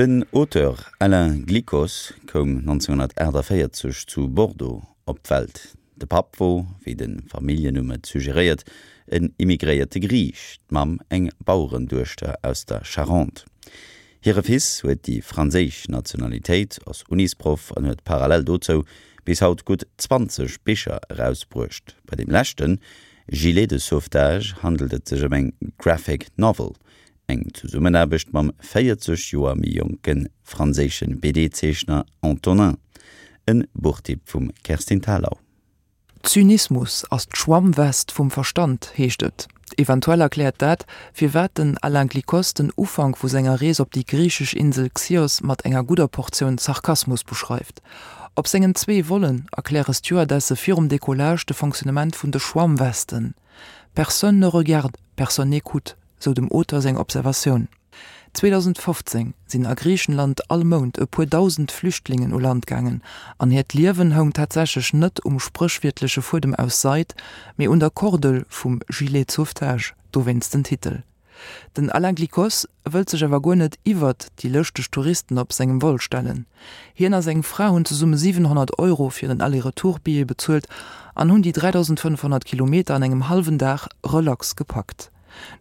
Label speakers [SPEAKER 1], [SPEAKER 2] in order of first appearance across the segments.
[SPEAKER 1] Den Auteur Alain Glicos koum 1948 zu Bordeaux op d'Welt. De Papp wor, wéi de Familljennumm et suggeréiert, en immigréierte Griich, d'Mamm eng Bauerenduechter aus der Charente. Hire Fils huet déi franséisch Nationalitéit, ass Unisproff an huet parallel dozou bis haut gutt 20 Bicher erausbruecht. Bei deem leschten, Gilet de sauvetage, handelt et sech ëm eng Graphic Novel, eng Zesummenaarbecht mam 40 Joer méi jonke franséische BD-Zeechner Antonin. En Buchtipp vum Kerstin Thalau.
[SPEAKER 2] Zynismus ass d'Schwammwest vum Verstand, heescht et. Eventuell erkläert dat, firwat den Alain Glicos den Ufank vu senger Rees op déi griichesch Insel Xios mat enger gudder Portioun Sarkasmus beschreift. Op sengen zwee Vollen erkläre Stewardesse virum Decollage de Fonctionnement vun de Schwammwesten. Personne ne regarde, personne n'écoute, sou dem Auteur seng Observatioun. 2015 sinn a Griichenland all Mount e puer dausend Flüchtlingen u Land gaangen an hiert Liewen houng tatsächlech net um spréchwiertleche Fuedem aus Seid, mee un der Kordel vum Gilet de sauvetage, dowéinst den Titel. Den Alain Glicos wëllt sech awer guer net iwwert déi lëschteg Touristen op sengem Vol stellen. Hien a seng Fra hunn zesumme 700 Euro fir en Aller-Retour-Billet bezuelt an hunn déi 3.500 Kilometer an engem hallwen Dag relax gepackt.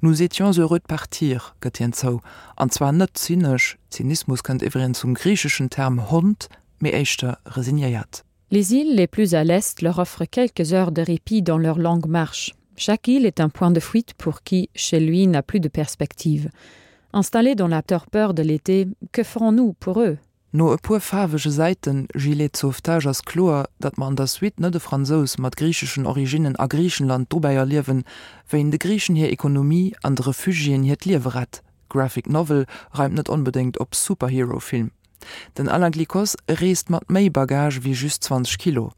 [SPEAKER 2] Nous étions heureux de partir, gëtt hien zou, an zwar net zynesch, Zynismus kënnt iwwregens vum griicheschen Term Hond, mee éischter resignéiert.
[SPEAKER 3] Les îles les plus à l'est leur offrent quelques heures de répit dans leur longue marche. Chaque île est un point de fuite pour qui, chez lui, n'a plus de perspective. Installés dans la torpeur de l'été, que ferons-nous pour eux?
[SPEAKER 2] No e puer faarwege Säiten Gilet de sauvetage ass kloer, datt mer an der Suite net e Fransous mat griicheschen Originnen a Griichenland dobäi erliewen, wéi en de Griichen hir Ekonomie an de Refugiéen hiert Liewe rett. Graphic Novel reimt net onbedéngt op Superhero-Film. Den Alain Glicos reest mat méi Bagage wéi just 20 Kilo.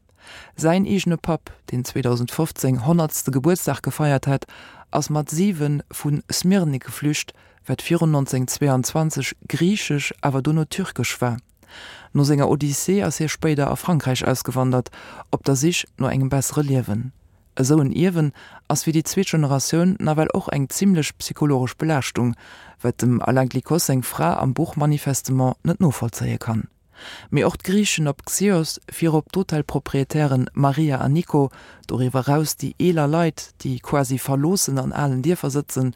[SPEAKER 2] Säin eegene Papp, deen 2015 honnertste Gebuertsdag gefeiert hat, ass mat 7 vu Smyrni geflücht, wat virun 1922 griichesch, awer dono türkesch war. No senger Odyssee ass hie spéider a Frankräich ausgewandert, op der Sich no engem bessere Liewen. Esou en Ierwen ass fir déi zweet Generatioun nawell och eng zimmlech psychologesch Belaaschtung, wat dem Alain Glicos seng Fra am Buch manifestement net novollzéie kann. Mee och d'Griichen op Xios, virop d'Hotelproprietären Maria an Nico, doriwwer eraus déi eeler Leit, déi quasi verloossen an alen Dierfer sëtzen,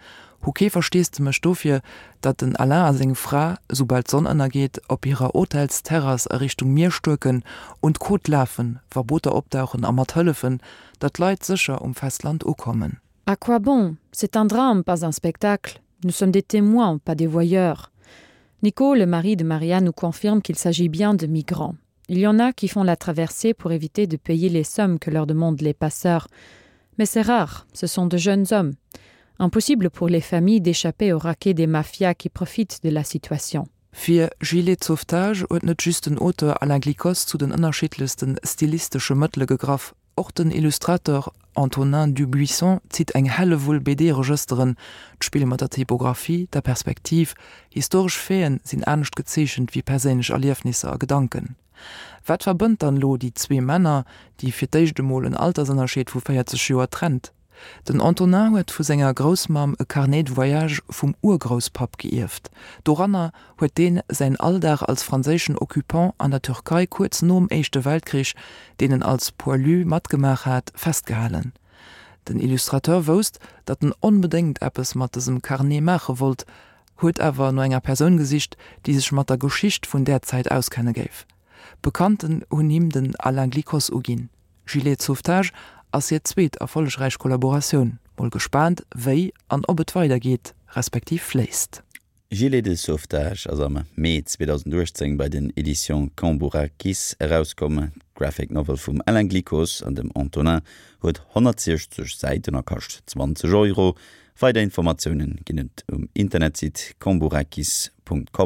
[SPEAKER 2] hu kee Versteesdemech dofir, datt den Alain a seng Fra, soubal d'Sonn ënnergeet, op hirer Hotelsterrass a Richtung Mier stuerken und d'Côte lafen, wa Booter opdauchen a mat hëllefen, datt d'Leit sécher um Festland ukommen.
[SPEAKER 3] À quoi bon? C'est un drame, pas un spectacle. Nous sommes des témoins, pas des voyeurs. Nico, le mari de Maria, nous confirme qu'il s'agit bien de migrants. Il y en a qui font la traversée pour éviter de payer les sommes que leur demandent les passeurs. Mais c'est rare, ce sont de jeunes hommes. Impossible pour les familles d'échapper au raquet des mafias qui profitent de la situation.
[SPEAKER 2] Fir Gilet de sauvetage huet net just den Auteur Alain Glicos zu den ënnerschiddlechste stilistesche Mëttele gegraff, Och den Illustrateur Antonin Dubuisson zitt eng Hellewull BD-Regësteren, d'Spill mat der Typographie, der Perspektiv, historesch Faiten sinn anescht gezeechent wéi perséinlech Erliefnisser a Gedanken. Wat verbënnt dann elo déi zwee Männer, déi fir d'éischt emol en Altersënnerscheed vu 40 Joer trennt? Den Antonin huet vu senger Groussmamm e Carnet de voyage vum Urgrousspapp geierft. Doranner huet deen säin Alldag als franséischen Occupant an der Türkei kuerz nom Éischte Weltkrich, deen en als Poilu matgemaach hat, festgehalen. Den Illustrateur wousst, datt en onbedéngt eppes mat dësem Carnet maache wollt, huet awer no enger Persoun gesicht, déi sech mat der Geschicht vun där Zäit auskenne géif. Bekannten hunn him den Alain Glicos uginn. Gilet de sauvetage ass hir zweet erfollegräich Kollaboratioun. Mol gespaant wéi an ob et weider geet, respektiv fléisst.
[SPEAKER 1] Gilet de sauvetage ass am Mee 2018 bei den Editions Cambourakis erauskomm. D'Graphic Novel vum Alain Glicos an dem Antonin huet 160 Säiten a kascht 20 Euro. Weider Informatioune ginn et um Internetsite cambourakis.com.